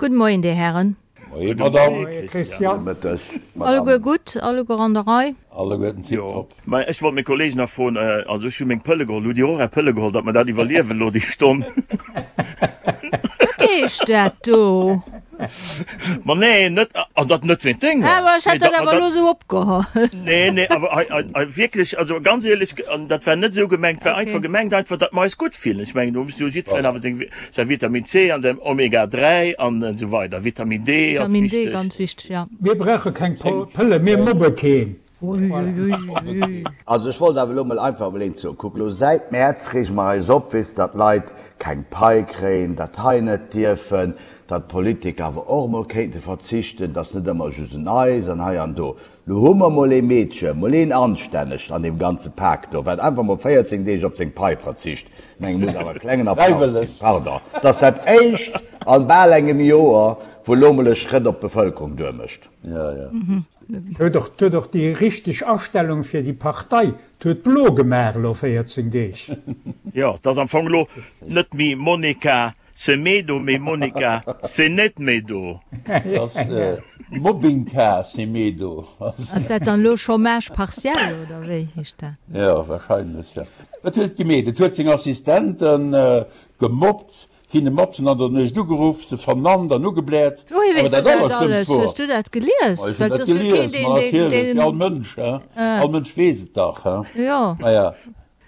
Gudde Moien, Dir Hären. Moie Madame. Moie Christian. Gudde Mëtteg Madame. Alleguer gutt, alleguer an der Rei? Alleguerten tiptop. Mä ech wollt meng Kollegen nach froen, also ech hu meng Pëlle geholl, hutt Dir och Är Pëlle geholl, datt mer dat iwwerliewen elo déi Stonn? Wat heescht dat do? Ma nee, net, an dat net wéint denger. Awer ech hätt dat awer elo esou opgeholl. Nee, nee, awer hei, hei, hei wierklech, also ganz éierlech, an dat war net esou gemengt, war einfach gemengt einfach, datt mer eis gutt fillen. Ech mengen, do muss jo jiddwereen awer seng, säi Vitamin C an säin Omega 3 an esou weider. Vitamin D ass Vitamin D, wichteg. ganz wichteg, ja. Mir brauche keng Pëlle, mir mobbe keen. Uiuiuiui. Also ech wollt awer elo mol einfach emol eent soen, Kuck elo, säit Mäerz reege mer eis op, weess, datt d'Leit keng Pai kréien, dat hei net dierfen, datt d'Politiker awer och emol kéinte verzichten, datt net ëmmer just un eis an hei an do. Lo hu mer mol ee Meedche, mol een anstännegt an deem ganze Pak do, wat einfach mol 14 Deeg op seng Pai verzicht. Ech mengen, muss awer e klengen Applaus ginn, pardon, et ass dat éischt an bal engem Joer, wou elo mol e Schrëtt op d'Bevëlkerung duermécht. Ja, ja. Huet och, huet och déi richteg Astellung fir déi Partei. Huet blo gemaach elo 14 Deeg. Jo, et ass am Fong elo net méi Monica Semedo, mee Monica Senetmedo. Et ass Mobbingka Semedo. Ass dat dann elo Chômage partiel oder wéi heescht dat? Jo, wahrscheinlech, jo. Wat huet et gemeet? Et huet seng Assistenten gemobbt, Hinne matzen an der Nuecht ugeruff, se vernannt an ugebläert. Wouhier Awer weess du dat dat Allerschlëmmst alles? wor. Hues du dat gelies? Ma ech hunn Well dat et ass jo keen, gelies, deen, ma deen, natierlech, wéi deen. all Mënsch, he? Ah. All Mënsch weess et dach, he? Jo. Maja,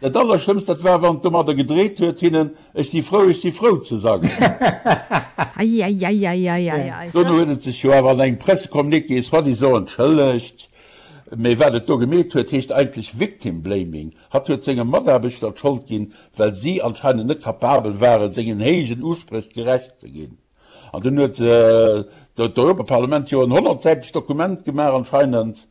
dat Allerschlëmmst, dat war, wann et domadder gedreet huet, hinnen Ech si frou, ech si frou ze sangen. Eieieiei. Dono huet et sech jo awer an engem Pressecommuniqué soi-disant entschëllegt. Mee wat et do gemeet huet, heescht eigentlech Victim Blaming. Hatt huet senge Mataarbechter d'Schold ginn, well si anscheinend net kapabel waren, sengen héijen Uspréch gerecht ze ginn. An dunn huet d'Europaparlament jo en honnertsäitegt Dokument gemaach anscheinend,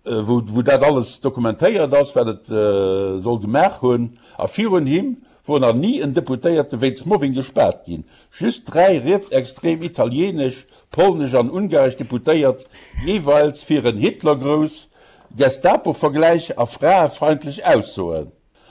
wou dat alles dokumentéiert ass, wat et soll gemaach hunn. A virun him wor nach ni en Deputéierte wéinst Mobbing gespaart ginn. Just 3 rietsextrem italienesch, polnesch an ungaresch Deputéiert, jeeweils fir en Hitlergrouss, Gestapo-Vergläich a fraefeindlech Aussoen.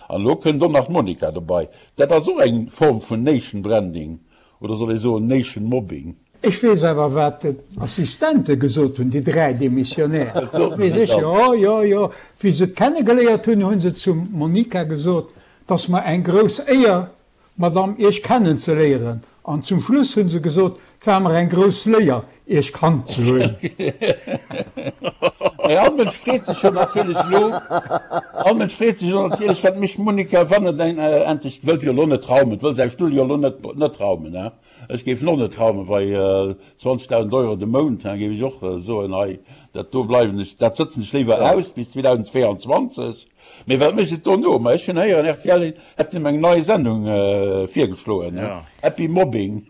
An elo kënnt och nach d'Monica dobei. Dat ass och eng Form vun Nation Branding, oder soll ee soen Nation Mobbing? Ech weess awer, wat d'Assistente gesot hunn, déi 3 Demissionnaires. Wat soten Weess se ech, dann? jo, jo, jo. Wéi se et kennegeléiert hunn, hu se zum Monica gesot, 't ass mer eng grouss Éier, Madame, Iech kennen ze léieren. An zum Schluss hunn se gesot, 't war mer eng grouss Léier, Iech kannt ze hunn. Mä all Mënsch freet sech jo natierlech elo, all Mënsch freet sech elo natierlech, wat mécht d'Monica, wann et endlech, wëllt jo elo net raumen, wëll säi Stull jo elo net, net raumen, hein? Ech géif en och net raumen bei 20.000 Euro de Mount, hein, géif ech och soen, hei, dat do bleiwen ech, dat sëtzen ech léiwer aus bis 2022. Mee wat mécht et dono? Ma ech hunn héieren, rtl hätt him eng nei Sendung virgeschloen, Happy Mobbing.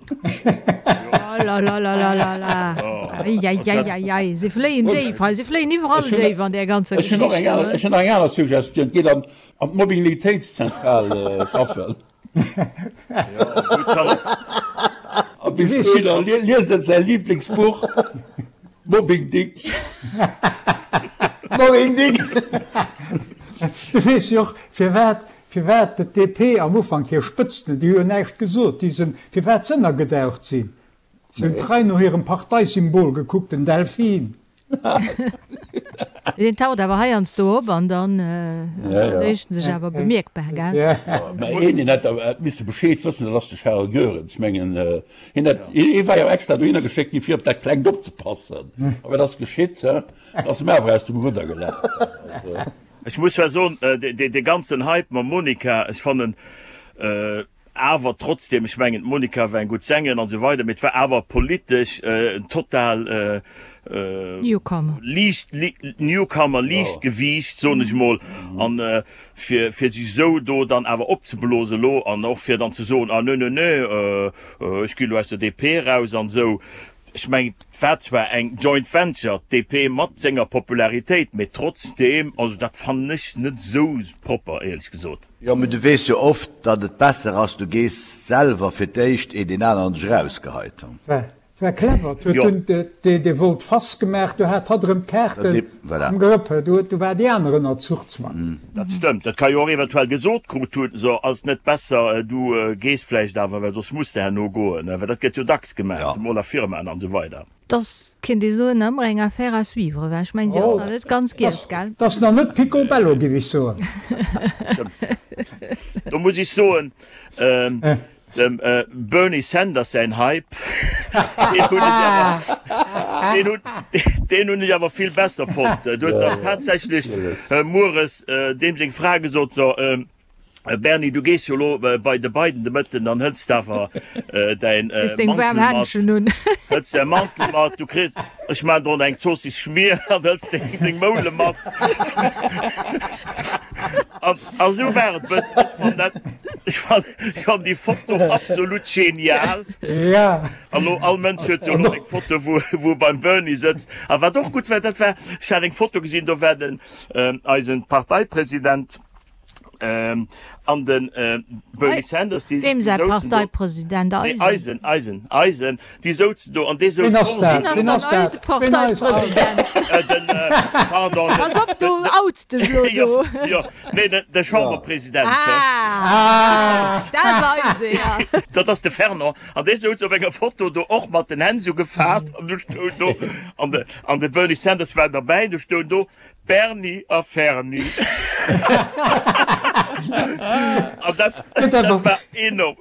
Olalalala, eieieiei, si fléien déif hei, si fléien iwwerall déif an där ganzer Ech hunn och Geschicht eng do. aner, ech hunn nach eng aner Suggestioun, Geet an d'Mobbinglitéitszentral schaffen. A bis dohinner liest en säi Liblingsbuch Mobbing Dick. Mobbing Dick! Du weess jo och, firwat, firwat d'DP am Ufank hir Spëtzten, déi hu jo näischt gesot, déi sinn, firwat s'ënnergedaucht sinn. Se hunn trei no hirem Parteisymbol gekuckt, den Delfin. Deen taucht awer heiansdo op an dann mécht en sech awer bemierkbar, gell? Mä een, deen hätt awer misse Bescheed wëssen, dat ass de Charles Goerens. Ech mengen, hien hätt, hie war jo extra dohinner geschéckt gi fir op dat Klengt opzepassen. A wat ass geschitt? Et ass em awer aus dem Rudder gelaf. Ech muss zwar soen, dee ganzen Hype mam Monica, ech fannen, Awer trotzdem, ech mengen d'Monica war eng gutt Sängerin an esou weider, mee et war awer politesch en total Newcomer, liicht, Newcomer, Liichtgewiicht, soen ech mol. An fir fir sech esou do dann awer opzeblosen elo an och fir dann ze soen, ah nö nö nö, ech gi elo aus der DP eraus an esou, ech mengen et war zwar eng Joint Venture, d'DP mat senger Popularitéit, mee trotzdem, also dat fannen ech net esou propper éierlech gesot. Jo, mee du weess jo oft, datt et besser ass, du gees selwer fir d'éischt, eer deen aneren dech erausgeheit. Et war clever, et huet dunn dee Volte-face gemaach, du hat hatt erëm d'Kaarten am Grëpp, du war déi aner ënner Zuchzwang. Dat stëmmt, dat ka jo och eventuell gesot krut hunn, so ass et net besser du gees vläicht awer, well soss muss de herno goen, well dat gëtt jo dacks gemaach, zemol a Firmaen an esou weider. 't ass, kéint ee soen, nach ëmmer eng Affaire à suivre, well ech mengen, si ass nach net ganz giess, gell? 't ass nach net picobello, giff ech soen. Do muss ech soen, Dem Bernie Sanders säin Hype, deen hunn ech awer, deen hunn, deen hunn ech awer vill besser fonnt. Do huet dann tatsächlech mueres deem seng Fra gesot, So, Bernie, du gees jo elo bei de Biden de Mëtten, dann hëls de awer däin Mantel mat, hëls däi Mantel mat, du kriss, ech maachen der och nach eng Zoossiss Schmier an hëls deng Moule mat. A sou war et bëssen. Ech fann dat, ech fann, ech fann déi Foto absolut genial. Ja. An lo, all Mënsch huet jo elo seng Foto, wou, wou e beim Bernie sëtzt. A wat och gutt war, dat war, ech hat eng Foto gesinn, do war den, eisen Parteipresident, an den Bernie Sanders, déi, Weem déi säi souzen do. Parteipresident? Nee, Eisen? eisen, eisen, eisen. Déi souzen do an dee souz Ween ass och dat? Ween ass Ween dann ass dat? eise Ween ass Parteipresident? Den, pardon, den, Pass op, du outs dech elo jo, do. jo, nee, den, de Chamberpresident. Ah, dat ass eise, ja. Dat ass de Fernand. An dee souz op enger Foto do och mat den Hänn sou gefaalt an du stoung do, an de, an de Bernie Sanders war derbäi, du stoung do, Bernie a Ferni. An dat, dat war enorm.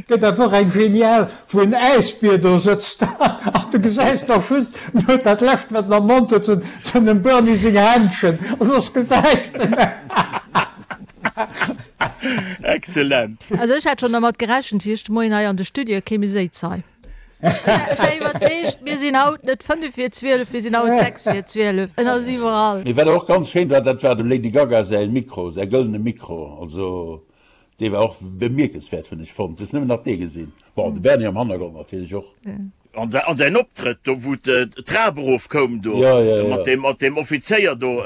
Gëtt awer och eng genial, wou en Äisbier do sëtzt an du gesäis nach just no dat lescht wat en am Mond huet, sinn dem Bernie seng Händschen a soss gesäis de näischt. Excellent. Also ech hat schon dermat gerechent, wéi ech de Moien hei an de Studio kéim, mir séiz hei. Ech war iwwerzeegt, mir sinn haut net 5 vir 12, mir sinn haut 6 vir 12. En ass iwwerall. Mee wat och ganz schéin war, dat war dem Lady Gaga säi Mikro, säi gëllene Mikro. Also dee war och bemierkenswäert, hunn ech fonnt. Hues nëmmen nach dee gesinn. Bon, de Bernie am Hannergrond natierlech och. An säin Optrëtt do, wou d'Trap erof koum do, mat deem, mat deem Offizéier do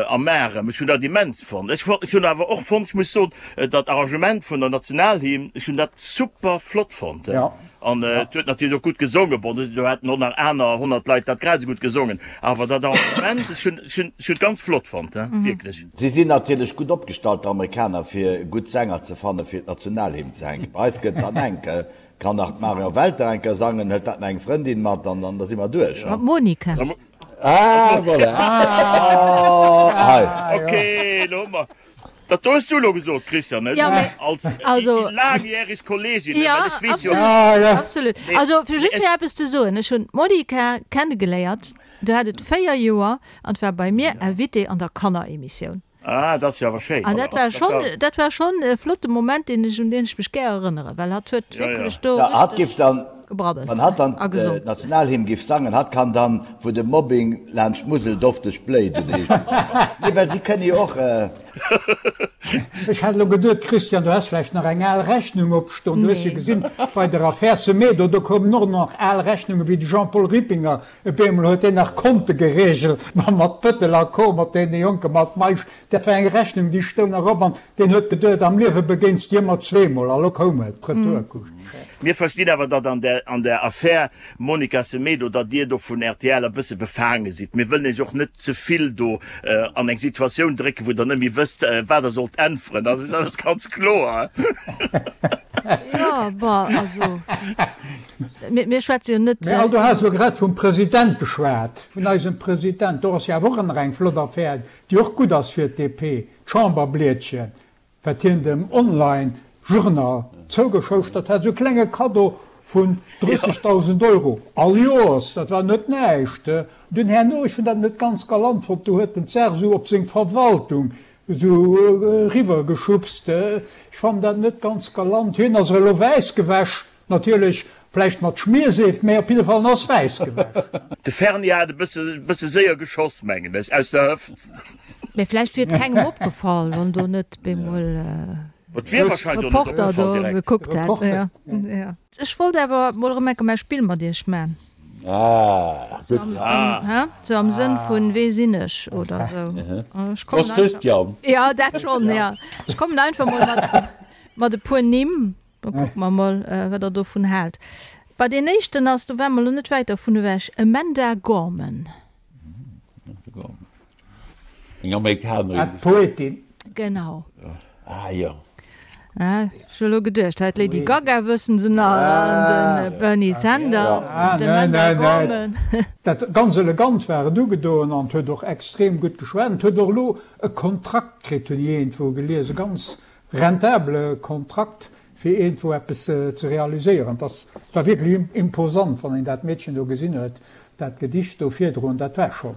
am Arem, ech hunn dat immens fonnt. Ech hunn awer och fonnt, ech muss soen, dat Arrangement vun der Nationalhymn, ech hunn dat super flott fonnt. An et huet natierlech och gutt gesongen. Bon, do hätten och nach aner 100 Leit dat grad esou gutt gesongen, awer dat Arrangement, ech hunn, ech hunn, ech hunn et ganz flott fonnt, wierklech. Si sinn natierlech gutt opgestallt, d'Amerikaner, fir gutt Sänger ze fannen, fir d'Nationalhymn ze hänken. Bei eis gëtt dann enk, kann nach d'Marion Welter eng Kéier sangen, hëlt dat nach eng Frëndin mat an dann da si mer duerch. Mat Monika. Ah, voilà. Ah, hei. Okay, elo hu mer. Dat do hues du elo gesot, Christian, net? Ja, mee, Als also, déi laangjäreg Kollegin, ja, well ech weess jo. absolut, Ah, ja. absolut. Nee, Also, fir nee, just ech. fir eppes ze soen, Ech hunn d'Monika kennegeléiert, do hat et 4 Joer an war bei mir Invitée an der Kanneremissioun. Ah, dat ass jo awer schéin. An dat war schonn, dat war schonn e flotte Moment, deen ech, un deen ech mech gär erënneren, well hatt huet wierklech do Ja, hatt giff richteg dann, gebraddelt wann hatt dann a gesongen. d'Nationalhymn giff sangen, hatt kann dann, wou de Mobbing laanscht d'Musel dofteg bléit, oder heescht dat? Nee, well si kënne jo och. Ech hat elo geduet, Christian, du häss vläicht nach eng al Rechnung opstoen. Du hues jo Nee. gesinn, bei der Affär Semedo, do koumen och nach al Rechnungen, wéi de Jean-Paul Rippinger Op eemol huet deen nach Konte geregelt mat Bëttel a Co. Mat deene Jonke mat Meisch. Dat war eng Rechnung, déi stoung nach op an deen huet geduet, am Liewe begéins de ëmmer zweemol. A lo koum et, d'Retourkusch. Mir verstinn awer, datt an der an der Affär Monica Semedo, datt Dir do vun rtl e bësse befaange sidd. Mir wëllen Iech och net ze vill do an eng Situatioun drécken, wou Der net méi wësst, wat Der sollt äntweren. Also dat ass ganz kloer. Jo, bon, also. Mir schwätze jo net. Mä al, du has elo grad vum President geschwat, vun eisem President. Do ass jo awer och ëmmer eng flott Affär, déi och gutt ass fir d'DP, d'Chamberblietchen, wat hien dem Online-Journal zougeschouschtert hat, esou e klenge Kaddo vun 30.000 Euro all Joers, dat war net näischt. Dunn herno, ech hunn dat net ganz galant fonnt, do huet en d'Saach esou op seng Verwaltung esou eriwwer geschubst. Ech fannen dat net ganz galant. Hien ass elo wäiss gewäsch. Natierlech vläicht mat Schmierseef, mä op jidde Fall en ass wäiss gewäsch. De Ferni hat e bësse séier geschoss, mengen ech, aus der Hëft. Mä vläicht wier et kengem opgefall, wann do net bemol e Reporter do gekuckt hätt. Ech wollt awer mol erëm enker mäi Spill mat iech man. Ah, gutt. Sou am Sënn vun Wee sinn ech oder sou. Prost Christian. Jo, dat schonn, jo. Ech kommen einfach mol mat e puer Nimm. Da kucke mer mol, wat Der dovun haalt. Bei deen éischten ass, do ware mer elo net wäit dervun ewech, Amanda Gorman. Eng Amerikanerin. Ah, d'Poetin. Genau. Ah jo. Ech hu elo geduecht, hei d'Lady Gaga wëssen se nach an de Bernie Sanders an d'Amanda Gorman. Dat ganz elegant war et ugedoen an huet och extrem gutt geschwat an huet och elo e Kontrakt kritt, hunn ech iergendwou gelies, e ganz rentabele Kontrakt fir iergendwou eppes ze realiséieren. Dat war wierklech imposant, wann een dat Meedchen do gesinn huet, dat Gedicht do virdroen, dat war schonn.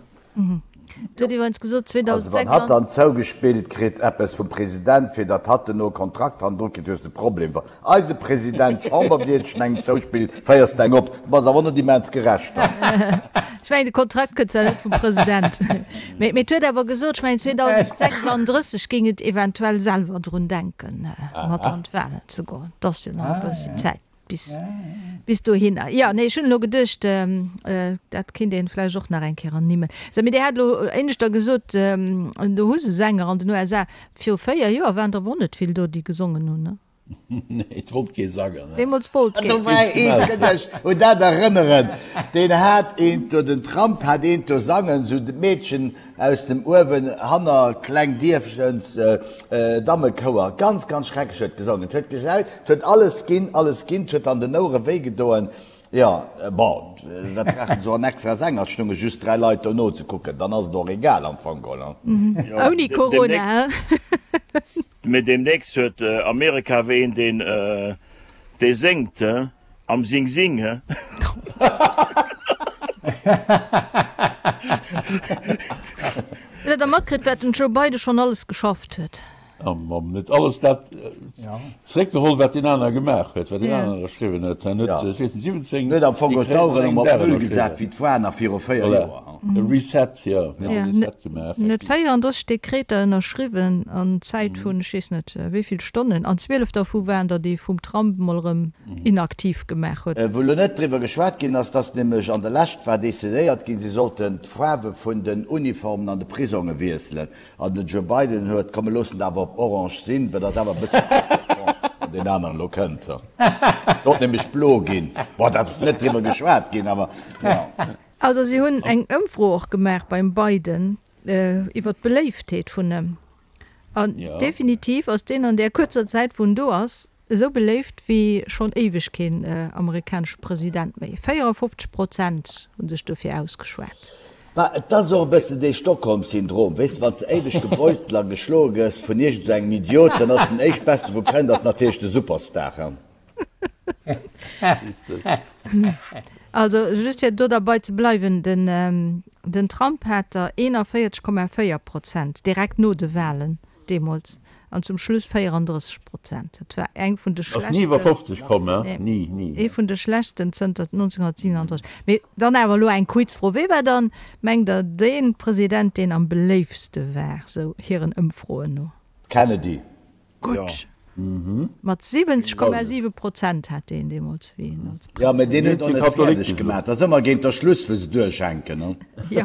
Et huet iwwerens gesot, Also wann 2006. hatt dann zougespillt kritt eppes vum President, fir datt hatt duerno e Kontrakt hannendru kritt, hues de e Problem. Wann eise President d'Chamberblietchen engem zouspillt, féiers de eng op. Du bass awer net immens gerecht dann. Ech mengen, de Kontrakt kënnt zwar net vum President, mee et huet awer gesot, ech mengen 2036 géing et eventuell selwer drun denken, mat an d'Wahlen ze goen. Et ass jo nach e bëssen Zäit bis bis dohinner. Jo, nee, ech hunn elo geduecht, dat kéint een vläicht och nach eng Kéier ernimmen. Sou, mee Dir hat elo éineschter gesot, do hu se Sänger an den USA. Viru 4 Joer waren der awer och net vill do, déi gesongen hunn, ne? Nee, et wollt kee sangen. Deemools wollt keen. Do war een, kënnt Iech un dat erënneren, deen hat eent do, den Trump hat eent do sangen, sou d'Meedchen aus dem uewen hanner kleng Dierfchens Dammekouer, ganz, ganz schrecklech huet gesongen, et huet gejaut, et huet alles ginn, alles ginn, et huet an den Ouere wéi gedoen. Jo, bon, wat brauchen se och en extra Sänger, et stounge just 3 Leit do nozekucken, dann ass et och egal am Fong geholl. Ouni Corona, he? Mee deemnächst huet Amerika awer een deen dee séngt he, am Sing Sing he. Hutt der da matkritt wat den Joe Biden schonn alles geschafft huet? Am net alles dat zréckgeholl wat deen aner gemaach huet, wat deen aner ënnerschriwwen huet. En huet, ech weess net, 17 Huet am Fong d'Aueren erëm op Null gesat wéi d'Foire nach viru 4 Joer. E Reset, jo, en huet e Reset gemaach, En huet 34 Dekreter ënnerschriwwen an Zäit vun ech weess net wéi vill Stonnen, an 12 dervu waren der déi vum Trump mol erëm inaktiv gemaach huet. Wou elo net driwwer geschwat ginn ass, dass nämlech an der Lescht war decidéiert ginn, si sollten d'Faarwe vun den Uniformen an de Prisonge wiesselen. An den Joe Biden huet, komm mir loossen et awer op orange sinn, well dat ass awer e bësse orange, wann deen aneren elo kënnt. Sollt nämlech blo ginn. Bon, dat ass net driwwer geschwat ginn, awer jo. Also si hunn eng Ëmfro och gemaach beim Biden iwwer d'Beléiftheet vun em. An definitiv ass deen an där kuerzer Zäit, wou en do ass, Esou beléift wéi schonn éiweg keen amerikanesche President méi. 54 Prozent hu sech dofir ausgeschwat. Bah, et ass och e bëssen dee Stockholm-Syndrom, weess de, wann s de éiweg gebeutelt a geschloe gëss vun iergend esou engem Idiot, dann ass den éischtbesten, wou kënnt, ass natierlech de Superstar, he. Also just fir do derbei ze bleiwen, den Trump hat der 41,4 Prozent direkt no de Walen deemools an zum Schluss 34 Prozent. Dat war eng vun de Ass ni iwwer 50 komm, he? Ni, ni. Ee vun de schlechtsten zënter 1937. Mee dann awer elo eng Quizfro, Wee war dann, mengt Der, dee President, deen am beléiftste war, sou hiren Ëmfroen no? Kennedy. Gutt. Mat 70,7 Prozent hat deen deemools, wéi en als Jo, mä deen huet och net fäerdeg gemaach. Dat ass ëmmer géint der Schluss, wou se duerchhänken, ne? Jo.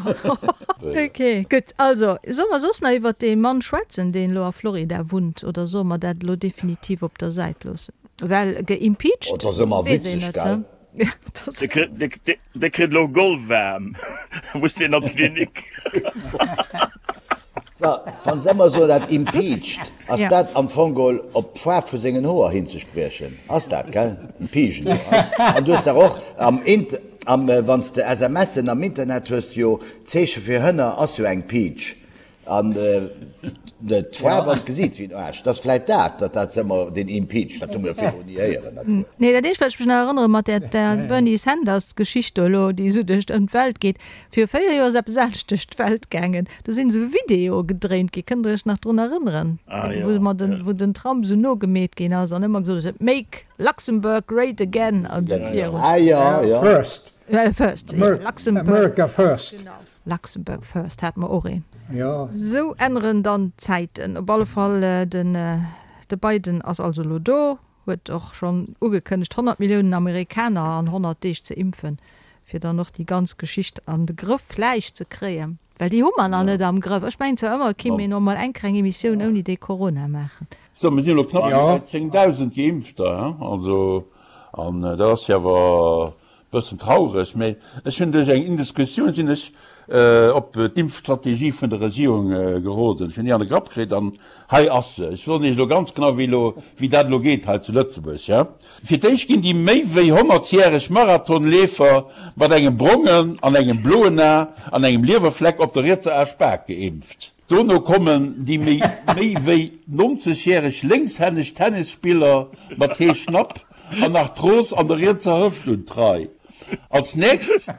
Ok, gutt. Also, solle mer soss nach iwwert dee Mann schwätzen, deen elo a Florida wunnt, oder solle mer dat elo definitiv op der Säit loossen? Well geimpeached, Oh, dat ass ëmmer weess een witzeg, net, gell? Dee kritt elo Golfwaarm, muss deen an d'Klinik. So, wann se ëmmer soen, dat impeached, ass dat am Fong geholl op d'Faarf vu sengen Hoer hinzespriechen? Ass dat, gell? Impeachen, jo. An du hues dach och am Int, am, wann s de SMSen am Internet hues de jo, d'Zeeche fir Hënner ass jo eng Peach. An d'Faarf an d'Gesiit wéi en Aarsch. Dat ass vläit dat, datt dat se ëmmer deen impeached, dat hu mer jo virdrun ni héieren, dat Wuert. Nee, dat eescht, wat ech mech nach erënnere mat där, där Bernie Sanders-Geschicht do elo, déi esou duerch ëm d'Welt geet, Viru 4 Joer ass eppes anescht duerch d'Welt gaangen. Do sinn esou Videoe gedréint ginn. Kënnt der iech nach drun erënneren? Wou mer den, wou den Trump esou nogemeet ginn ass an ëmmer gesot huet, Make Luxembourg great again an esou virun. Ah jo, jo. First. First, jo, Luxembourg. America first. Genau. Luxembourg first hate mer och een. Jo. Sou änneren dann d'Zäiten. Op alle Fall, den, de Biden ass also elo do. Huet och schonn ugekënnegt 100 Milliounen Amerikaner an 100 Deeg ze impfen, fir dann och déi ganz Geschicht an de Grëff vläicht ze kréien, well déi hu mer nach net am Grëff. Ech mengen zwar ëmmer, et kéint een och mol eng kleng Emissioun ouni dee Corona maachen. Sou, mir sinn elo knapp bei 10.000 Geimpfter, also. An dat ass jo awer Bëssen traureg, mee ech hunn duerch eng Indiscretioun sinn ech op d'Impfstrategie vun der Regierung geroden. Ech hunn déi an de Grapp kritt an hei ass se. Ech soen Iech elo ganz genau wéi elo, wéi dat elo geet hei zu Lëtzebuerg, ja. Fir d'éischt ginn déi méi wéi honnertjäreg Marathonleefer mat engem brongen an engem bloen A an engem Liewerfleck op der rietser Aaspak geimpft. Dono kommen déi méi méi wéi 90 järeg lénkshänneg Tennisspiller mat Heeschnapp an Arthros an der rietser Hëft un d'Rei. Als nächst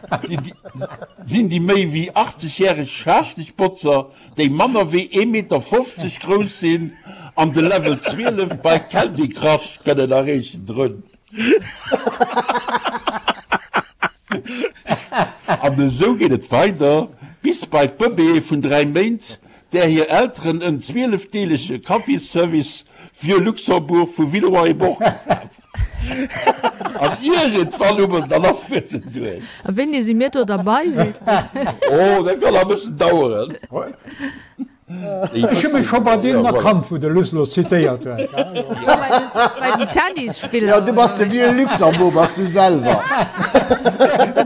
sinn déi méi wéi 80 järeg Schaaschtegbotzer, déi manner wéi ee Meter 50 grouss sinn an de Level 12 bei Candy Crush kënnen erreechen, drun. An esou geet et weider bis bei d'Bëbeeë vun 3 Méint, där hir Elteren en zwielefdeelege Kaffisservice Vieux Luxembourg vu Villeroy-et-Boch geschaf hunn. An iergendwann hu mer se dann och guerten duerch. A wéini si mir do derbei, sees de? Oh, dat kann nach e bëssen daueren. Ech hu mech scho bei deenen erkannt, wou de Luss lo zitéiert huet. Jo, bei den Tennisspiller. Jo, du bass de Vieux Luxembourg, bass du selwer.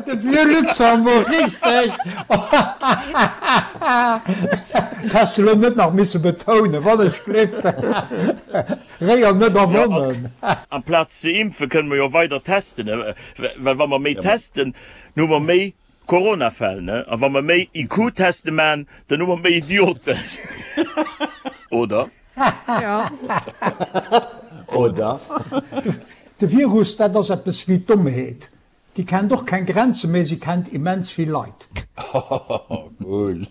De Vieux Luxembourg, richteg! Dat häss de lo net nach misse betounen, wann ech gleeft. Réier net erwonnen. Amplaz ze impfen, kënne mer jo weider testen, well wa mer méi testen, hu mer méi Coronafäll, ne? A wa mer méi IQ-Teste man, dann hu mer méi Idioten. Oder? Jo. Oder? De Virus, dat ass eppes wéi d'Dommheet. Déi kennt och keng Grenzen, mee se kennt immens vill Leit. Cool.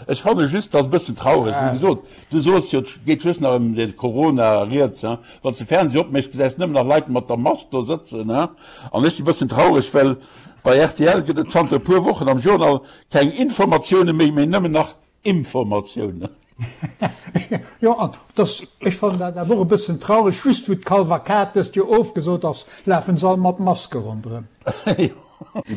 Ech fanne just, dass e bëssen traureg, wéi gesot, du soos jo, et geet just nach ëm de Corona rieds, hein. Wann s de Fernseh opméchs, gesäis nëmmen nach Leit mat der Mask do sëtzen, hein. An ech si bëssen traureg, well Bei rtl gëtt et zanter e puer Wochen am Journal keng Informatioune méi, mee nëmmen nach Imformatiounen. Jo, an dass, ech fannen dat awer och e bëssen traureg, just wou d'Kalvakad dëst Joer ofgesot ass, lafen se all mat Maske ronderëm. Déi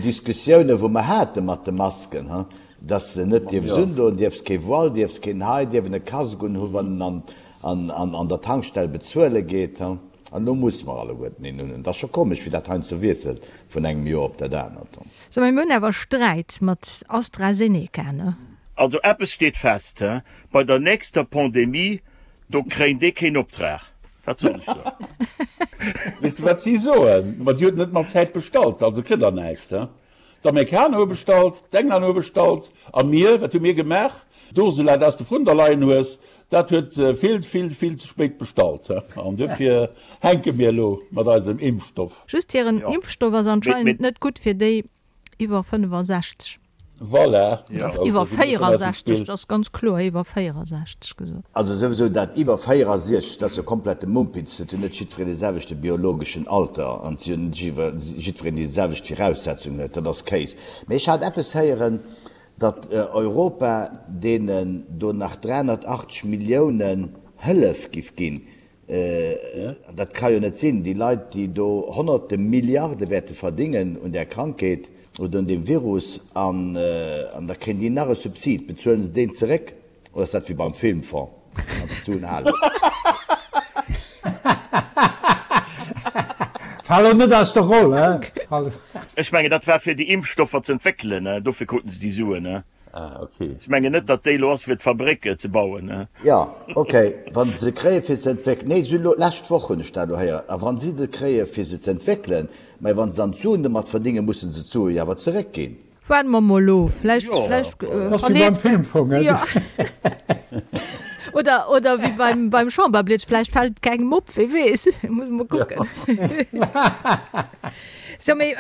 Diskussioune wou mer hate mat de Masken, he, dass se net dierfs undoen, dierfs kee Voile, dierfs keen hei, dierf en e Casque unhu wann en an der Tankstell bezuele geet, he. An elo musse mer alleguerten een hunn. Et ass scho komesch, wéi dat heiansdo wiesselt vun engem Joer op dat anert. So, mee mir hunn awer Sträit mat AstraZeneca, ne? Also eppes steet fest, bei der nächster Pandemie, do kréint ee keen Optrag. Wat soll ech do? Weess de wat si soen? Ma dir hutt net mat Zäit bestallt, also kritt der näischt. D'Amerikaner hu bestallt, d'Englänner hu bestallt, a mir, wat hu mir gemaach? D'Ursula, dat s de vrun der leien hues, dat huet vill, vill, vill ze spéit bestallt. An duerfir hänke mir elo mat eisem Impfstoff. Just hiren Impfstoff ass anscheinend net gutt fir déi iwwer 65. Voilà. Iwwer 64, dat ass ganz kloer iwwer 64 gesot. Also souwisou dat iwwer 64, dat ass jo komplette Mumpitz. Et huet net jiddwereen dee selwechte biologeschen Alter an et huet net jiddwereen déi selwecht Viraussetzungen huet. Dat ass Kéis. Mee ech hat eppes héieren, datt Europa deenen do nach 380 Milliounen Hëllef giff ginn. Dat ka jo net sinn. Déi Leit, déi do honnerte Milliarde wäerte verdingen un där Krankheet oder un deem Virus, an da kréien déi nach e Subsid. Bezuelen se deen zeréck oder ass dat wéi beim Filmfonds, wann se d'Suen halen? Fal elo net aus der Roll, he? Ech mengen, dat war fir déi Impfstoffer z'entwéckelen, dofir kruten se déi Suen. Ah, ok. Ech mengen net, datt déi elo ass fir d'Fabréck ze bauen. Jo, ok, wa se se kréie fir ze entwéckelen. Nee, se hunn elo, d'lescht Woch hunn ech dat elo héieren. A wa si se kréie fir se ze entwéckelen, mä wa se dann d'Suen domat verdéngen, musse se d'Sue jo awer zeréckginn. Waarde mer mol of, vläicht, vläicht Dat ass wéi beim Filmfong, he? Jo. Oder, oder wéi beim, beim Chamberblietsch, vläicht fält et kengem op, wie weess, muss mol kucken. Sou, mee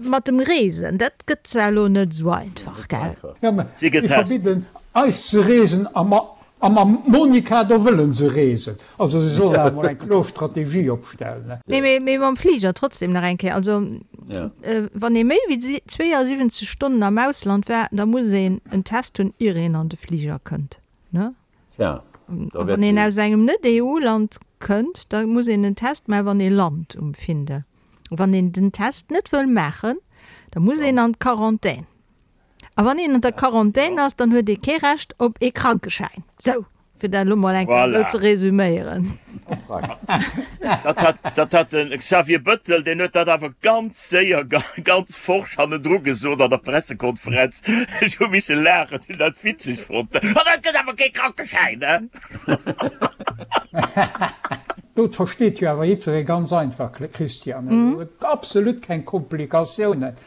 mat dem Reesen, dat gëtt zwar elo net esou einfach, gell? Jo, mä si verbidden eis ze reesen a mam Monica, do wëllen se reesen. Also si sollen awer mol eng kloer Strategie opstellen. Nee, mee mam Fliger trotzdem nach eng Kéier. Also wann ee méi wéi 72 Stonnen am Ausland war, da muss een en Test hunn, ier een an de Fliger kënnt, ne? Tja, da wäert. Wann een aus engem Net-EU-Land kënnt, da muss een en Test maachen, wann ee lant um Findel. Wann een den Test net wëll maachen, da muss een an d'Quarantän. A wann een an der Quarantän ass, dann huet ee kee Recht op ee Krankeschäin. Sou! Fir dat elo mol eng Kéier esou ze resüméieren. Dat hat, dat hat de Xavier Bëttel, deen huet dat awer ganz séier, ganz forsch hannendru gesot an der Pressekonferenz. Ech hu misse laachen, hunn dat witzeg fonnt. An dat gëtt awer kee Krankeschäin, ne? Dat versteet jo awer jiddweree ganz einfach, Christian. Absolut keng Komplikatiounen.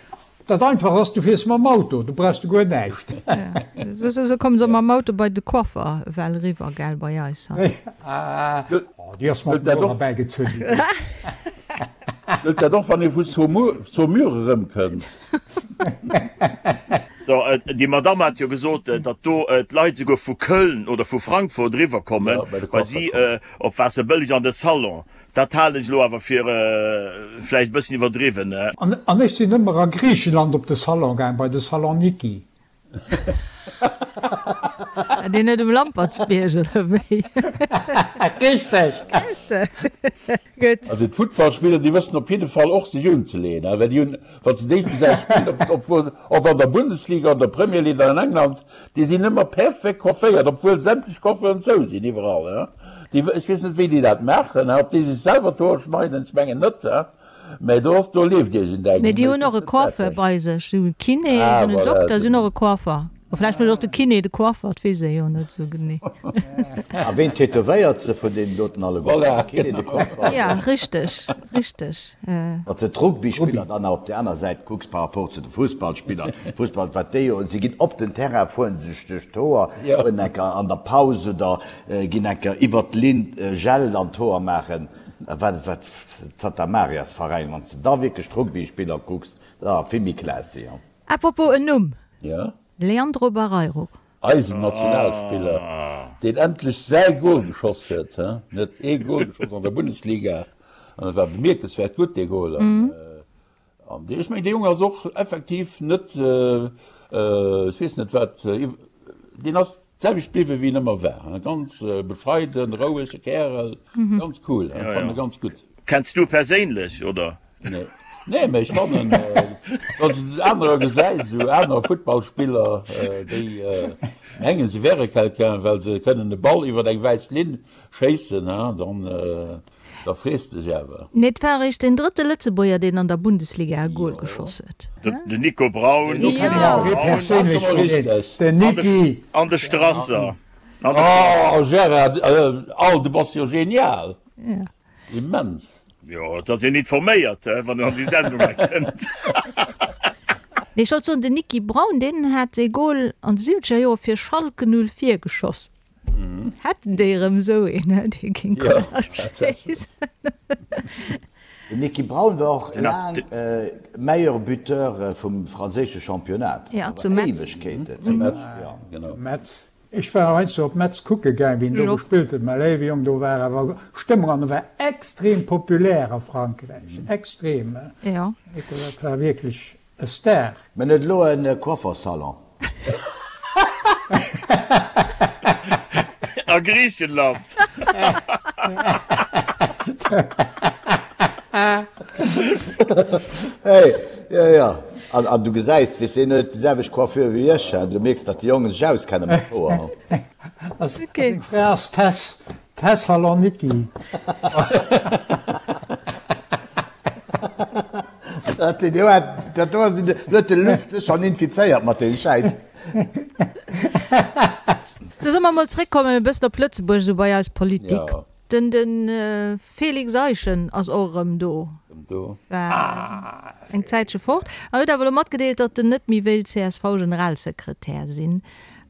Dat einfach ass, du fiers mam Auto, du brauchs de guer näischt. Esou kommen se mam Auto bei de Coiffer ewell eriwwer, gell, bei eis hei. Oh, déi ass mat dem Motor erbäigezunn ginn. Gëllt dat och, wann ee vu Saumur erëmkënnt? So, déi Madamm hat jo gesot, datt do d'Leit esouguer vu Köln oder vu Frankfurt eriwwerkommen, well si op Waasserbëlleg an de Salon Dat halen ech elo awer fir vläicht e bëssen iwwerdriwwen. An ech sinn ëmmer a Griichenland op de Salon gaang, bei de Saloniki. Deen net um Lampertsbierg, oder wéi? Richteg! Gutt. Also d'Futtballspiller, déi wëssen op jidde Fall och sech unzeleeën, well déi hunn, wa se déi gesäis spillen, ob ob an der Bundesliga, an der Premier League oder an England, Déi sinn ëmmer perfekt coifféiert, obwuel sämtlech Coiffeuren zou sinn iwwerall. Déi, ech weess net wéi déi dat maachen, ob déi sech selwer d'Hoer schneiden, ech mengen net, mä do ass, do leeft iergendeng. Nee, déi hunn och e Coiffeur bei sech. Si hunn e Kiné, si hunn en Dokter, si hunn och e Coiffer. A vläicht huet och de Kiné de Coiffer, dat weess ee jo net esou genee. A ween tätowéiert se vun deenen doten alleguerten? Voilà, De Kiné, de Coiffer? Ja, richteg, richteg. Wann s de d'Rugbyspiller dann nach op där aner Säit kucks par rapport zu de Fussballspiller, Fussball, wat déi jo, si ginn op den Terrain, fueren sech duerch d'Hoer, fueren enker an der Paus oder ginn enker iwwert d'Linn Gel an d'Hoer maachen, wat, wat, Tatamariasveräin, wann s de da wierklech d'Rugbyspiller kucks, da vill méi classy. Apropos en Numm, Ja. Leandro Barreiro. Eisen Nationalspiller, deen endlech säi Gol geschoss huet, he? En huet ee Gol geschoss an der Bundesliga an et war bemierkenswäert gutt, dee Gol. An ech mengen, dee Jong ass och effektiv net, ech weess net wat, deen ass d'selwecht bliwwen, wéi en ëmmer war, he? Ganz bescheiden, rouege Kärel, ganz cool, ech fannen e ganz gutt. Kenns du e perséinlech, oder? Nee, nee, mee ech fannen, wann s de anerer gesäis, esou aner Futtballspiller, déi mengen, se wäre quelqu'un, well se kënnen e Ball iwwer eng wäiss Linn schéissen, dann, da frees de dech awer. Nee, et war eréischt deen drëtte Lëtzebuerger, deen an der Bundesliga e Gol geschoss huet. Den Nico Braun. Do kenne ech awer ee perséinlech vun deenen, den Niki. An de Strasser. Oh Gérard, al, du bass jo genial! Immens! Jo, et ass een informéiert, wann en an déi Sendung hei kënnt. Nee, ech wollt soen, den Niki Braun, deen hat ee Gol an de siwwenzeger Joer fir Schalke 04 geschoss. Hätten déi erëm esou een, dee géing Goler schéissen. Den Niki Braun war och laang Meilleur Buteur vum franséische Championnat. Ja, zu Metz. Éiwegkeeten. Zu Metz, genau. Metz. Ech war heiansdo op Metz kucke gaang, wéi en do gespillt huet. Mä léiwe Jong, do war awer Stëmmung an e war extrem populär a Frankräich, extrem. Jo. Dat war wierklech e Star. Mä en huet elo e Coiffersalon. A Griichenland. Hey, jo, jo. An, an du gesäis, weess, deen huet déi selwecht Coiffure wéi ech, an du mierks, datt déi Jongen sech auskenne mat Hoer. A seng Fra ass Tess, Thessaloniki. Dat do, dat do ass, huet de Luss dech schonn infizéiert mat deem Schäiss. Sou, solle mer mol zréckkommen e bëssen op Lëtzebuerg, esou bei eis Politik. Den de Felix Eischen ass och erëm do. War eng Zäitche fort an huet awer elo matgedeelt, datt en net méi wéilt CSV-Generalsekretär sinn.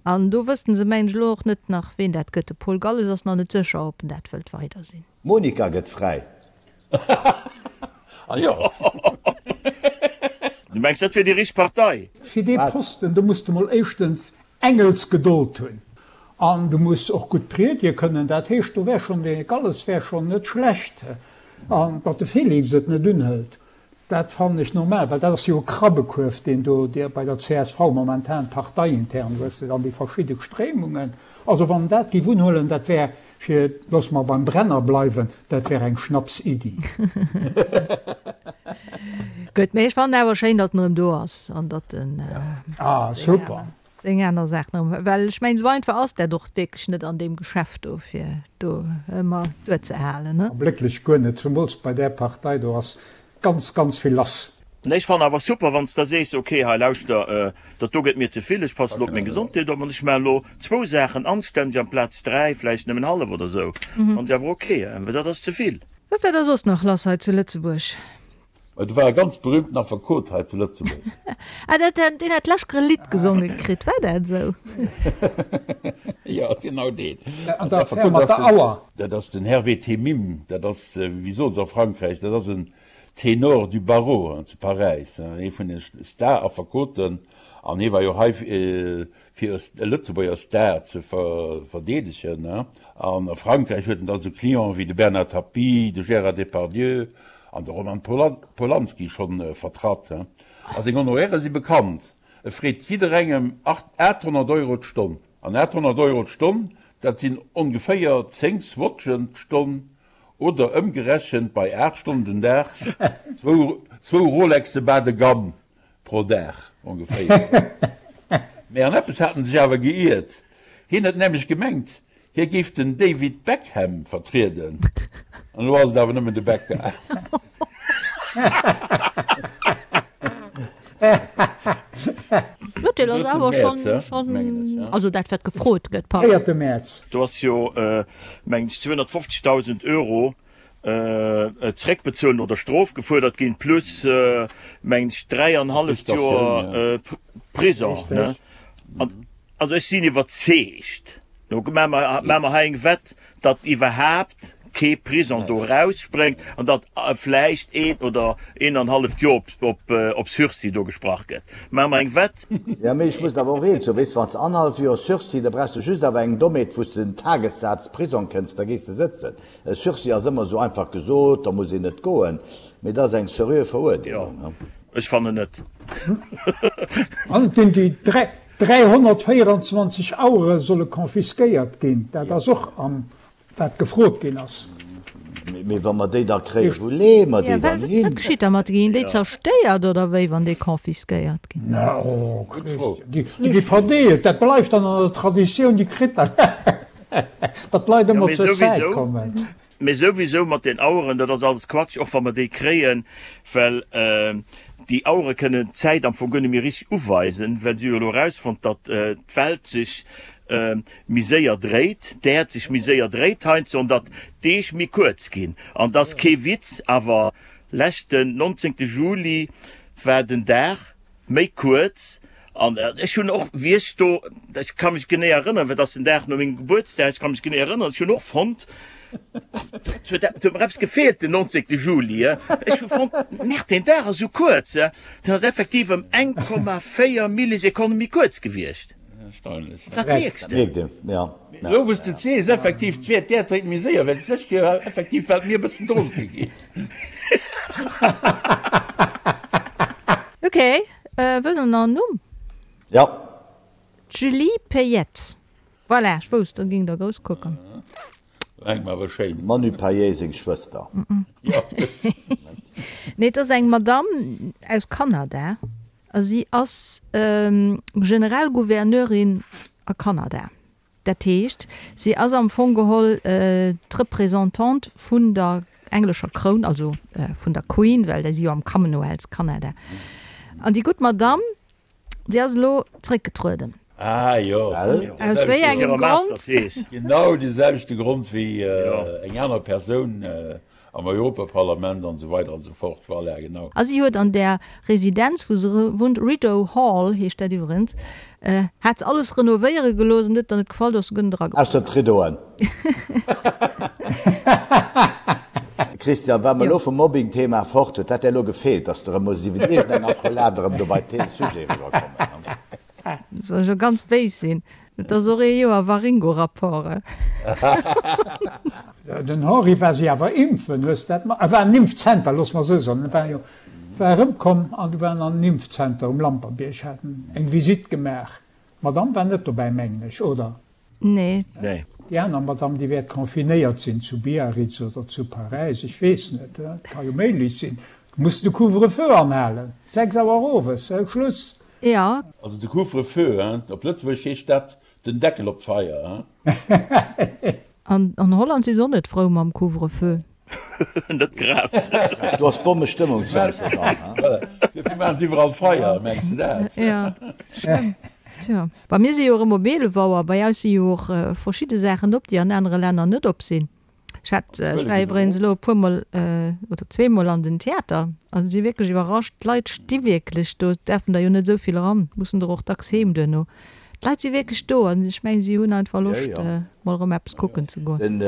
An do wëssten se mengen ech elo och net nach ween dat gëtt. De Paul Galles ass nach net sécher, ob en dat wëllt weider sinn. D'Monika gëtt fräi. Ah jo. Du mengs dat wier déi richteg Partei? Fir dee Posten, do muss de mol éischtens Engelsgedold hunn an du muss och gutt priedige kënnen. Dat heescht, do wär schonn de Galles wär schonn net schlecht. An datt de Félix et net unhëlt, dat fannen ech normal, well dat ass jo e Krabbekuerf, deen do bei der csv momentan parteiintern, hues de dann déi verschidde Stréimungen. Also wann en dat géif unhuelen, dat wär, fir, loosse mer beim Brenner bleiwen, dat wär eng Schnapsiddi. Gutt, mee ech fannen awer schéin, datt en erëm do ass an datt en. Ah, super. Seng aner Saachen erëm. Well ech mengen, esou einfach ass dat och wierklech net an deem Geschäft do, fir do ëmmer duerzehalen, ne? Blécklech guer net, zumools bei där Partei do ass ganz, ganz vill lass. Nee, ech fannen awer super wann s de sees, ok hei lauschter, dat do gëtt mir ze vill, ech passen elo op meng Gesondheet op an ech maachen elo zwou Saachen anstänneg amplaz 3, vläicht nëmmen hallef oder esou, fannen ech awer ok, well dat ass ze vill. Wat war da soss nach lass hei zu Lëtzebuerg? Mä do war e ganz berühmten Affekot hei zu Lëtzebuerg. Ah, dat, deen hat d'lescht e Lidd gesonge kritt, war dat esou? Jo, genau deen. An der Affär mat der Auer. Dat ass den Hervé Temime, dat ass, wéi soe se a Frankräich, dat ass en Ténor du barreau zu Paräis, ee vun de Star-Affekoten. An hie war jo hei fir e Lëtzebuerger Star ze verdeedegen. An a Frankräich huet en da sou Clienten wéi de Bernard Tapie, de Gérard Depardieu an de Roman Polanski schonn vertratt. A seng Honoraire si bekannt, e freet jidderengem 800 Euro d'Stonn. An 800 Euro d'Stonn, dat sinn ongeféier 10 Swatchen d'Stonn oder ëmgerechent bei 8 Stonnen den Dag zwou Rolexe bas de gamme Pro Dag ongeféier. Mee an eppes hat en sech awer geiert, Hien huet nämlech gemengt, hie géif den David Beckham vertrieden, an elo ass et awer nëmmen de Becca. L'Urteel ass awer schonn, also dat wat gefrot gëtt, pardon. Véierte Mäerz. Do ass jo, mengen ech, 250.000 Euro zeréckbezuelen oder Strof gefuerdert ginn, plus mengen ech 3 an halleft Joer Prison. Also ech sinn iwwerzeegt, lo maache mer hei eng Wett, datt iwwerhaapt kee Prison do erausspréngt an datt vläicht een oder een an halleft Joer op Sursis do gesprach gëtt. Maache mer eng Wett? Jo, mee ech muss der awer och eent soen, weess de, wann s de annerhallef Joer Sursis, da brauchs de just awer eng Dommheet, wou s de den Tagessaz Prisong kënns, da gees de sëtzen. E Sursis ass ëmmer esou einfach gesot, da muss een net goen, mee dat ass eng seriö Verurdeelung. Jo, ech fannen net. An et ginn déi 324 Auere solle confisquéiert ginn, dat ass och am wat gefrot ginn ass. Mee wa mer déi da kréien, wou leeë mer déi dann hin? Wat geschitt da mat deenen? Ginn déi zerstéiert oder wéi, wann déi confisquéiert ginn? Na, oh Christian, déi gi verdeelt, dat bleift dann an der Traditioun, déi kritt dann. Datt d'Leit ëmmer zur Zäit kommen. Mee souwisou mat den Aueren, dat ass alles Quatsch, och wa mer déi kréien, well déi Auere kënnen d'Zäit am Fong guer net méi richteg uweisen, well si hu jo elo erausfonnt, datt d'Welt sech méi séier dréit, d'Äerd sech méi séier dréit heiansdo an datt d'Deeg méi kuerz ginn. An et ass kee Witz, awer leschten 19. Juli war den Dag méi kuerz An ech hunn och, wéi ech do, ech ka mech genee erënneren, well et ass den Dag no mengem Gebuertsdag, ech ka mech genee erënneren, ech hunn och fonnt, et huet et huet mer eppes gefeelt den 19. Juli. Ech hu fonnt, Merde, deen Dag ass esou kuerz. Den ass effektiv ëm 1,4 Millisekonne méi kuerz gewiescht. Erstaunlech. Dat mierks de. Mierkt een, ja. Elo wou s de et sees, effektiv, d'Wäert d'Äerd dréit méi séier, well d'lescht Joer effektiv war et mir e bëssen dronke ginn. Ok. Wëllt der nach en Numm? Jo. D'Julie Payette. Voilà, ech wousst, da géing der grouss kucken. Eng awer schéin. Manu Payet seng Schwëster. Jo, gutt. Nee, et ass eng Madamm aus Kanada a si ass Generalgouverneurin a Kanada. Dat heescht, si ass am Fong geholl d'Representante vun der englescher Kroun, also vun der Queen, well déi si jo am Commonwealth, Kanada. An déi gutt Madamm, déi ass elo zréckgetrueden. Ah jo. Aus wéi engem Grond? Genau dee selwechte Grond wéi eng aner Persoun am Europaparlament an esou weider an esou fort. Voilà, genau. A si huet an där Residenz, wou se wunnt, Rideau Hall heescht dat iwwerens, hat se alles renovéiere gelooss an huet der net gefall, do ass se guer net erageplënnert. Ausser d'Rideauen. Christian, wa mer elo vum Mobbing-Thema fort, huet dat där elo gefeelt, dass de erëm muss iwwer iergendeng Accolade erëm do bei dee Sujet eriwwerkommen? Soll ech elo ganz béis sinn? Et ass och ee Joer Waringo-Rapport, eh? Den Henri war si awer impfen, hues dat mat? E war an Impfzenter, looss mer esou soen. E war jo, war erëmkomm an du war en an Impfzenter um Lampertbierg, hat en eng Visitt gemaach. D'Madame war net dobäi, mengen ech, oder? Nee. Nee. Déi aner Madame, déi wäert confinéiert sinn zu Biarritz oder zu Paräis, ech weess net, et ka jo méiglech sinn. Du muss de Couvre-feu anhalen, 6 Auer owes, Schluss. Jo. Also de Couvre-feu, hein? Op Lëtzebuergesch heescht dat den Deckel op d'Feier, hein? An an Holland si se och net frou mam Couvre-feu. Net grad. Do ass Bommestëmmung zu Amsterdam, hein? Voilà. Dofir maachen se iwwerall Feier, mengs de dat? Jo, schlëmm. Tjo. Bei mir si jo erëm op 11 Auer. Bei eis si jo och verschidde Saachen op, déi an anere Länner net op sinn. Ech hat, ech war iwwregens elo e puermol oder zweemol an den Theater a si wierklech iwwerrascht, d'Leit sti wierklech do, et däerfen der jo net esou vill eran, mussen der och dacks heem duerno. D'Leit si wierklech do an ech mengen, si hunn einfach Loscht, mol erëm eppes kucken ze goen. Den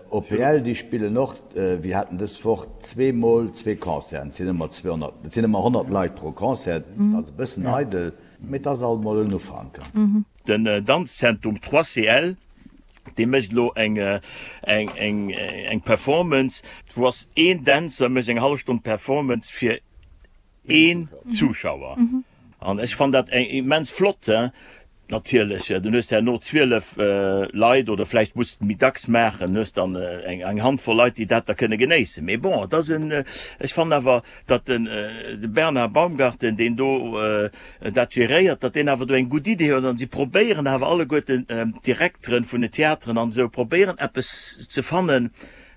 OPL, déi spillen och, wir haten dës Woch zweemol zwee Concerten, et sinn ëmmer 200, et sinn ëmmer 100 Leit pro Concert, et ass e bëssen eidel, mee et ass alt mol en Ufank. Den Danzzentrum 3CL Dee mécht elo eng eng eng eng Performance, wou ass een Dänzer mécht eng hallef Stonn Performance fir een Zuschauer. An ech fann dat eng immens flott. Natierlech, dann hues de herno 12 Leit oder vläicht muss de méi dacks maachen, hues dann eng eng Handvoll Leit, déi dat da kënne genéissen. Mee bon, et ass en, ech fannen awer, datt den de Bernard Baumgarten, deen do dat geréiert, datt deen awer do eng gutt Idee huet an si probéieren awer alleguerten d'Direkteren vun den Theateren an esou probéieren eppes ze fannen,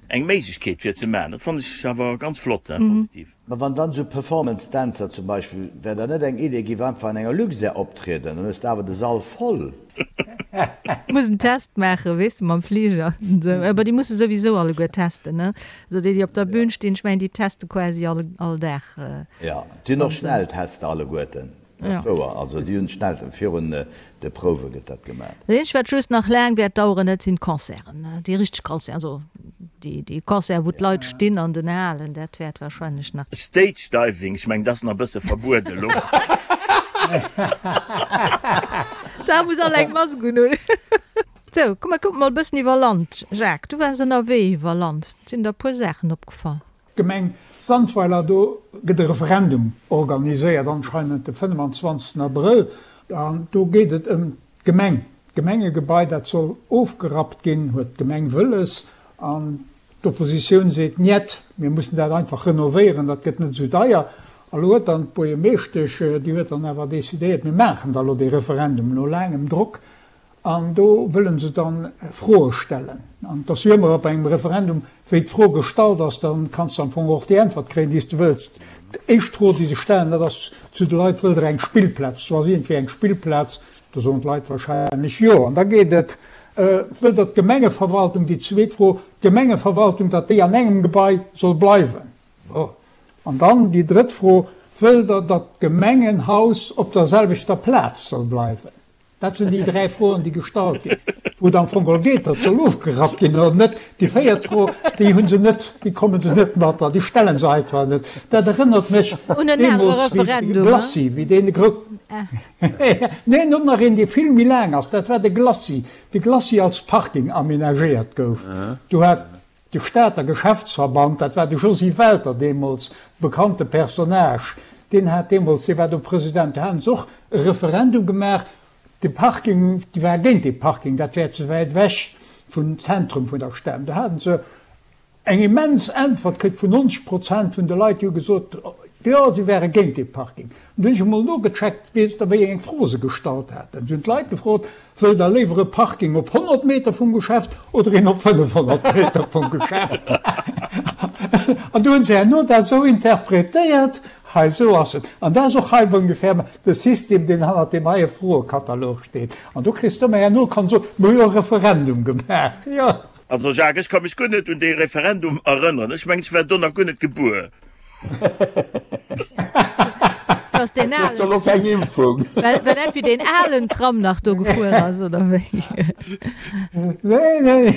eng Méiglechkeet fir ze maachen. Dat fannen ech awer ganz flott, positiv. Mä wann dann esou Performance-Dänzer zum Beispill, wär dat net eng Idee, giff einfach an enger Luxair optrieden, dann hues de awer de Sall voll. Muss en Test maachen, weess de, mam Fliger. Awer déi musse souwisou alleguer testen, ne? Also déi, déi op der Bühn stinn, ech mengen, déi teste quasi all, all Dag. Jo, déi hunn och Schnelltester alleguerten, dat ass wouer. Also déi hunn schnell, virun de Prouwe gëtt dat gemaach. Dat eenzegt, wat just nach laang wäert daueren, dat sinn d'Concerten, déi richteg Concerten, also déi, déi Concerten, wou d'Leit stinn an den Halen, dat wäert wahrscheinlech nach. Stage Diving, ech mengen, dat ass nach e bësse verbueden elo. Da muss all eng Mask unhunn. Sou, komm mer kucken mol e bëssen iwwer Land. Jacques, du waars ënnerwee iwwer Land, sinn der e puer Saachen opgefall? D'Gemeng Sandweiler, do gëtt e Referendum organiséiert, anscheinend de 25 Abrëll. An do geet et ëm d'Gemeng, d'Gemengegebai, dat soll ofgerappt ginn, huet d'Gemeng wëlles. An d'Oppositioun seet, Njet, mir mussen dat einfach renovéieren, dat gëtt net esou deier. A lo huet dann d'Buergermeeschtesch, déi huet dann awer decidéiert, mir maachen da lo dee Referendum, no laangem Drock. An do wëlle se dann Froe stellen. An et ass jo ëmmer op engem Referendum, wéi d'Fro gestallt ass, da kanns de am Fong och déi Äntwert kréien, déi s de wëlls. D'éischt Fro, déi se stellen, dat ass zu de Leit, Wëllt Der eng Spillplaz? Do ass iergendwéi eng Spillplaz. Do soen d'Leit wahrscheinlech Jo. An da geet et, Wëllt Der d'Gemengeverwaltung, déi zweet Fro, d'Gemengeverwaltung, datt déi an engem Gebai soll bleiwen? An dann déi drëtt Fro, Wëllt Der, datt d'Gemengenhaus op der selwechter Plaz soll bleiwen? Dat sinn déi dräi Froen, déi gestallt ginn. Wou et am Fong geholl geet, datt soll ofgerappt ginn oder net. Déi véiert Fro, déi hu se net, déi komme se net mat an déi stelle se einfach net. Dat erënnert mech deemools wéi de Glacis, wéi deen gro. Neen, och nach een, dee vill méi laang ass, dat war de Glacis. De Glacis als Parking amenagéiert gouf. Do hat De Stater Geschäftsverband, dat war de Josy Welter deemools, bekannte Personnage, deen hat deemools, dee war do President, do haten se och e Referendum gemaach, de Parking, déi ware géint dee Parking, dat wär ze wäit ewech vum Zentrum vun der Stad. Do haten se eng immens Äntwert kritt vun 90 Prozent vun de Leit, déi hu gesot, jo, si wäre géint dee Parking. An du hunn ech emol nogecheckt, weess Der, wéi eng Fro se gestallt haten? Se hunn d'Leit gefrot, Wëllt Der léiwer e Parking op 100 Meter vum Geschäft oder een op 500 Meter vum Geschäft? An du hunn se herno dat esou interpretéiert, hei esou ass et. An dat ass och hei ongefähr de System, deen hannert deem heie Froekatalog steet. An do kriss de ëmmer herno, kann soen, mir hu jo e Referendum gemaach. Jo. Also Jacques, ech ka mech guer net un dee Referendum erënneren. Ech mengen, ech war do nach guer net gebuer. Du ass deen Kriss du lo keng Impfung? Well, well dat wéi deen alen Tram nach do gefuer ass, oder wéi? Nee, nee.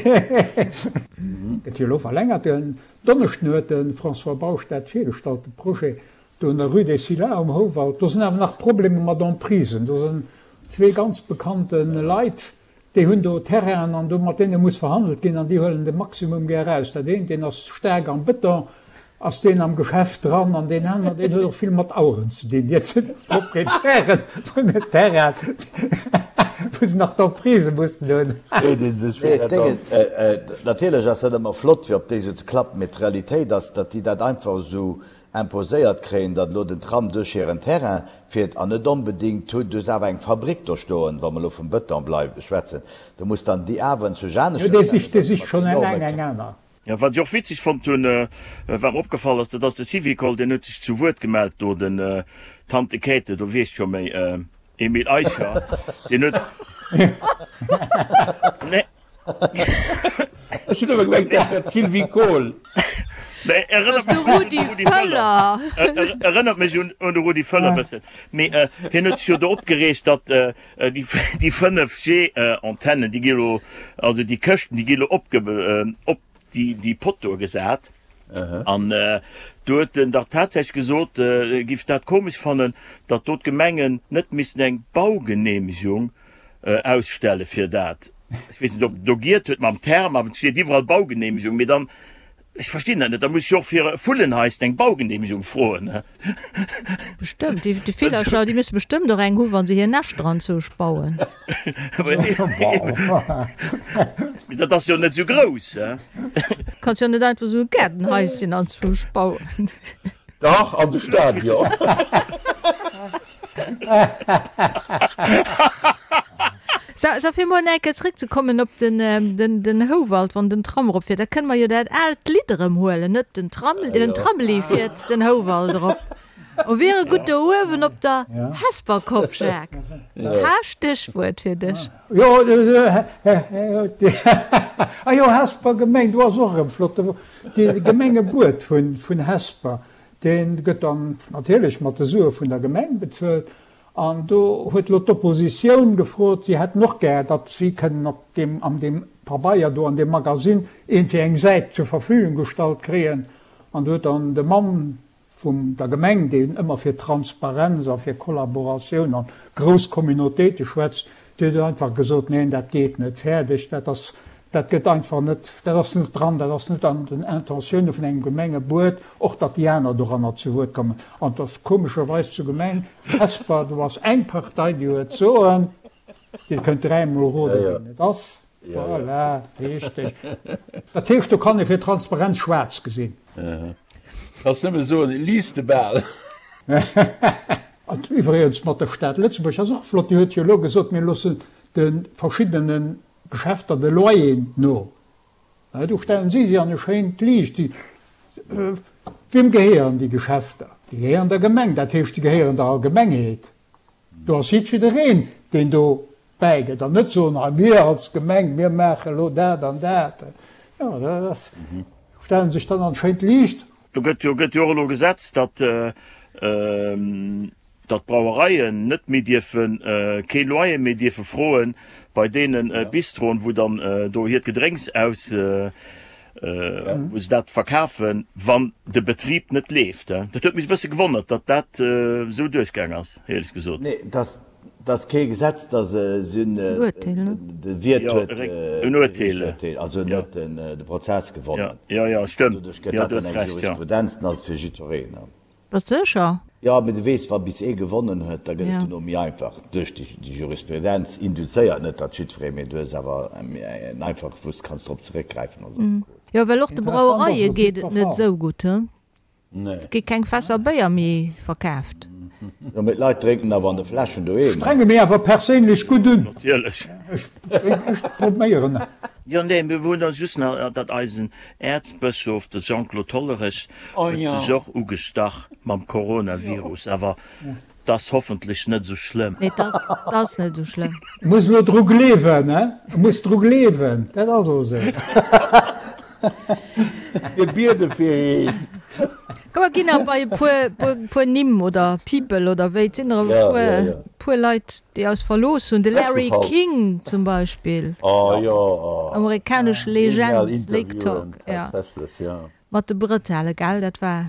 Gëtt jo elo verlängert. Den Donneschden huet de François Bausch dat virgestallt, de Projet do an der Rue des Scillas um Houwald. Do sinn awer nach Problemer mat Emprisen. Do sinn zwee ganz bekannte Leit, Déi hunn do Terrainen an do mat deene muss verhandelt ginn an déi huelen de Maximum gär eraus. Dat eent, deen ass staark am Bëton, ass deen am Geschäft dran an deen aner, deen huet och vill mat Aueren ze dinn. Dat sinn d'Proprietäre vun den Terrainen, wou se nach d'Emprise mussen hunn. Freet ee sech, wéi dat ass. Natierlech ass dat ëmmer flott, fir op déi esou ze klappen, mee d'Realitéit ass, datt déi dat einfach esou. Imposéiert kréien, datt elo den Tram duerch hiren Terrain fiert an net onbedéngt hunn. Du hues awer eng Fabrik do stoen, wa mer elo vum Bëton bleiwen, schwätzen, do muss dann déi awer zu Jo, aneschters dee sicht, dee sicht schonn eng eng eng aner. Jo, wat ech och witzeg fonnt hunn, wat mer opgefall ass, dat ass de Syvicol, deen huet sech zu Wuert gemellt do, den Tante Käthe, do weess scho méi, Emile Eicher, deen huet, nee. Ech hunn ëmmer gemengt, dat wär d'Sylvie Kohl. Nee, erënnert mech un de Rudi Völler. Erënnert mech un de Rudi Völler bëssen. Mee hien huet sech jo do opgereegt, datt déi 5G-Antennen, déi gi lo, also déi Këschten, déi gi lo op déi Pottoe gesat. An do huet en dach tatsächlech gesot, e giff dat komesch fannen, datt do d'Gemengen net missten eng Baugeneemegung ausstelle fir dat. Ech weess net, ob en do giert huet mam Term, awer et steet iwwerall Baugeneemegung. Mee dann, ech verstinn dat net, da muss ech jo och fir e Vullenhaisschen eng Baugeneemegung froen. Bestëmmt, déi Villercher, déi musse bestëmmt och eng hu wa se hir Näschter anzousch bauen. Mee dat ass jo net esou grouss. Kanns jo net einfach esou e Gaardenhaischen anzwousch bauen. Dach, an de Stadion. So, so fir mol eng Kéier zréckzekommen op den, den, den Houwald, wann den Tram eropfiert, da kënne mer jo dat aalt Lidd erëm huelen, net? Den Tram, den Tramli fiert den Houwald erop. O wier e gutt do uewen op der Hesperkopp, Jacques. Ha, Stéchwuert fir dech. Jo, ah jo, Hesper Gemeng, do ass och erëm flott, de Gemengebuet vun Hesper, dee gëtt dann natierlech mat de Sue vun der Gemeng bezuelt. An do huet elo d'Oppositioun gefrot, si hätten och gär, datt si kënnen op deem, an deem Pabeier do, an deem Magasinn iergendwéi eng Säit zur Verfügung gestallt kréien. An do huet dann de Mann vum der Gemeng, deen ëmmer fir Transparenz a fir Kollaboratioun an grouss Communautéite schwätzt, dee huet einfach gesot, Neen, dat geet net, fäerdeg, dat ass, dat gëtt einfach net, dat ass net dran, dat ass net an den Intentioune vun engem Gemengebuet, och datt déi aner doranner zu Wuert kommen. An et ass komescherweis zur Gemeng Hesper, do ass eng Partei, déi huet d'Soen, Dir kënnt dräimol roden, wien et ass. Voilà, richteg. Dat heescht, do kann ee fir Transparenz schwaarz gesinn. Kanns nëmme soen, lies de bal. An iwwregens mat der Stad Lëtzebuerg ass och flott, déi huet jo elo gesot, mir loossen de verschiddene Geschäfter de Loyer no. Do stellen si si an e schéint Liicht. Wiem gehéieren déi Geschäfter? Déi gehéieren der Gemeng, dat heescht, déi gehéieren der Allgemengheet. Do ass jiddwereen, deen do bäigëtt, an net soen, hei mir als Gemeng, mir maache elo dat an dat. Jo, dat ass, stelle sech dann an schéint Liicht. Do gëtt jo gëtt jo och elo gesetzt, datt datt d'Brauereien net méi dierfen, kee Loyer méi dierfe froen bei deene Bistroen, wou dann do hiert Gedrénks aus wou se dat verkafen, wann de Betrib net leeft. Dat huet mech e bësse gewonnert, datt dat esou duerchgaang ass, éierlech gesot. Nee, dat ass kee Gesetz, dat ass en de Wiert huet en Urteel, also en huet de Prozess gewonnen. Jo, jo, stëmmt. Doduerch gëtt dat dann eng Jurisprudenz, dann ass et fir jiddwereen. Bass de sécher? Jo, mee du weess, wa bis ee gewonnen huet, da gëtt et duerno méi einfach. Duerch déi Jurisprudenz induzéiert, net datt jiddweree, mee du hues awer en einfache, wou s de kanns drop zeréckgräifen als Affekot. Jo, well och de Brauereie geet et net esou gutt, he? Et gi keng Fässer Béier méi verkaaft. Jo, mee d'Leit drénken awer an de Fläschen doheem. Strenge mir awer perséinlech gutt un. Natierlech. Ech probéieren. Jo, nee, mir hunn da just nach, datt eisen Äerzbëschof, de Jean-Claude Hollerech, huet sech och ugestach mam Coronavirus, awer 't ass hoffentlech net esou schlëmm. Nee, 't ass net esou schlëmm. Muss elo dru gleewen, he? Muss dru gleewen, dat ass och esou. Mir biede fir heen. Komm mer ginn nach bei e puer, puer Nimm oder People oder wéi. Et sinn der e puer, puer Leit, déi eis verlooss hunn. De Larry King zum Beispill. Amerikanesch Legend, Lake Talk, jo. Mat de Brëtelle, gell? Dat war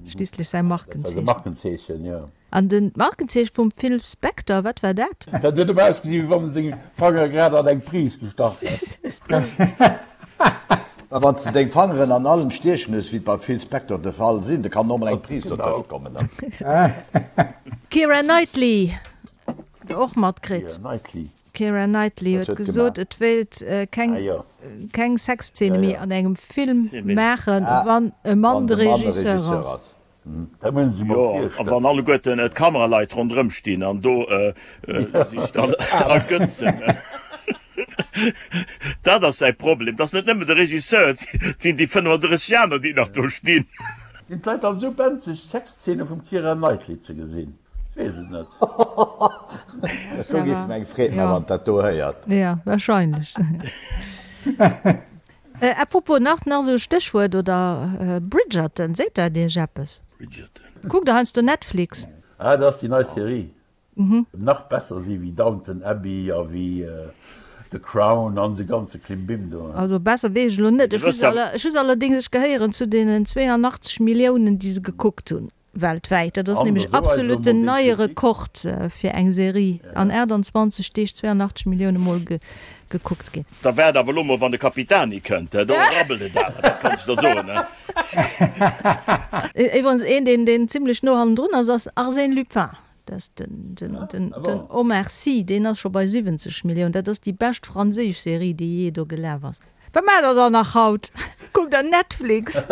schliisslech säi Markenzeechen. An den d'Markenzeeche vum Phil Spector, wat war dat? Dat huet ëmmer ausgesinn, wéi wann en seng Fangere grad an eng Pris gestach hätt. Mä wann s de deng Fangeren an allem stiechen hues, wéi et beim Phil Spector de Fall sinn, da kann och mol eng Pris dotëscht kommen. D'Keira Knightley, der och matkritt? D'Keira Knightley huet gesot, et wéilt keng keng Sexzeene méi an engem Film maachen, wann e Mann de Regisseur ass. Dat muss een sech mol Jo, a virstellen. wann alleguerten d'Kameraleit ronderëm stinn an do sech dann ergötzen. Dat ass säi Problem. Et ass net nëmmen de Regisseur, et sinn déi 35 aner, déi nach do stinn. Sinn d'Leit dann esou benzeg, Sexzeene vum Keira Knightley ze gesinn? Ech weess et net. Dat do géif mer eng Freed man, wann dat do héiert. Jo, wahrscheinlech. À propos, nach nach esou e Stéchwuert, oder Bridgerton, seet dat iech eppes? Bridgerton. Kuckt der heiansdo Netflix? Ah, dat ass déi nei Serie. Nach besser si wéi Downton Abbey a wéi The Crown an se ganze Klimbim do. Also besser weess ech elo net. Ech hu se allerdéngs, ech gehéieren zu deenen 82 Milliounen, déi se gekuckt hunn weltwäit. Dat ass nämlech absolut den neie Rekord fir eng Serie, an 28 Deeg 82 Millioune Mol gekuckt ginn. Da waart awer elo mol, wann de Capitani kënnt, do rabbelt et awer, dat kann ech der soen. Iwwerens een, deen zimlech no hannendrun ass, ass Arsène Lupin. Dat ass den, den, den, den Omar Sy, deen ass scho bei 70 Milliounen. Dat ass déi bescht franséisch Serie, déi jee do gelaf ass. Wat maacht der dann nach haut? Kuckt der Netflix?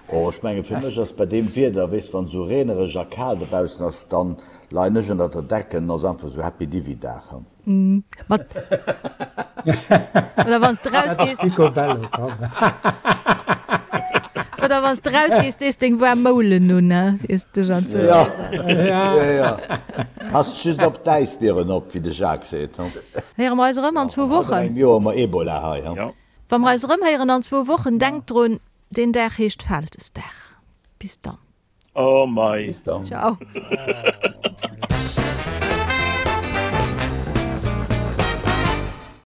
Oh, ech mengen fir mech ass bei deem Wieder, weess wann esou reenereg a kal dobaussen ass, dann leien ech ënnert der Decken, ass einfach esou Happy Divi Dag. Mat Oder wann s de rausgees. Picobello, komm. Oder wann s de rausgees, dees deng waarm Moulen un, he, iers de dech an d'Zuel Ja, setz. ja, ja. Passt just op d'Äisbieren op, wéi de Jacques seet, he. Héiere mer eis erëm an zwou An Wochen. engem Joer hu mer Ebola hei, he. Ja. Wa mer eis erëm héieren an zwou Wochen, denkt drun, deen Dag heescht Vältesdag. Bis dann. Oh mei. Bis dann. Ciao.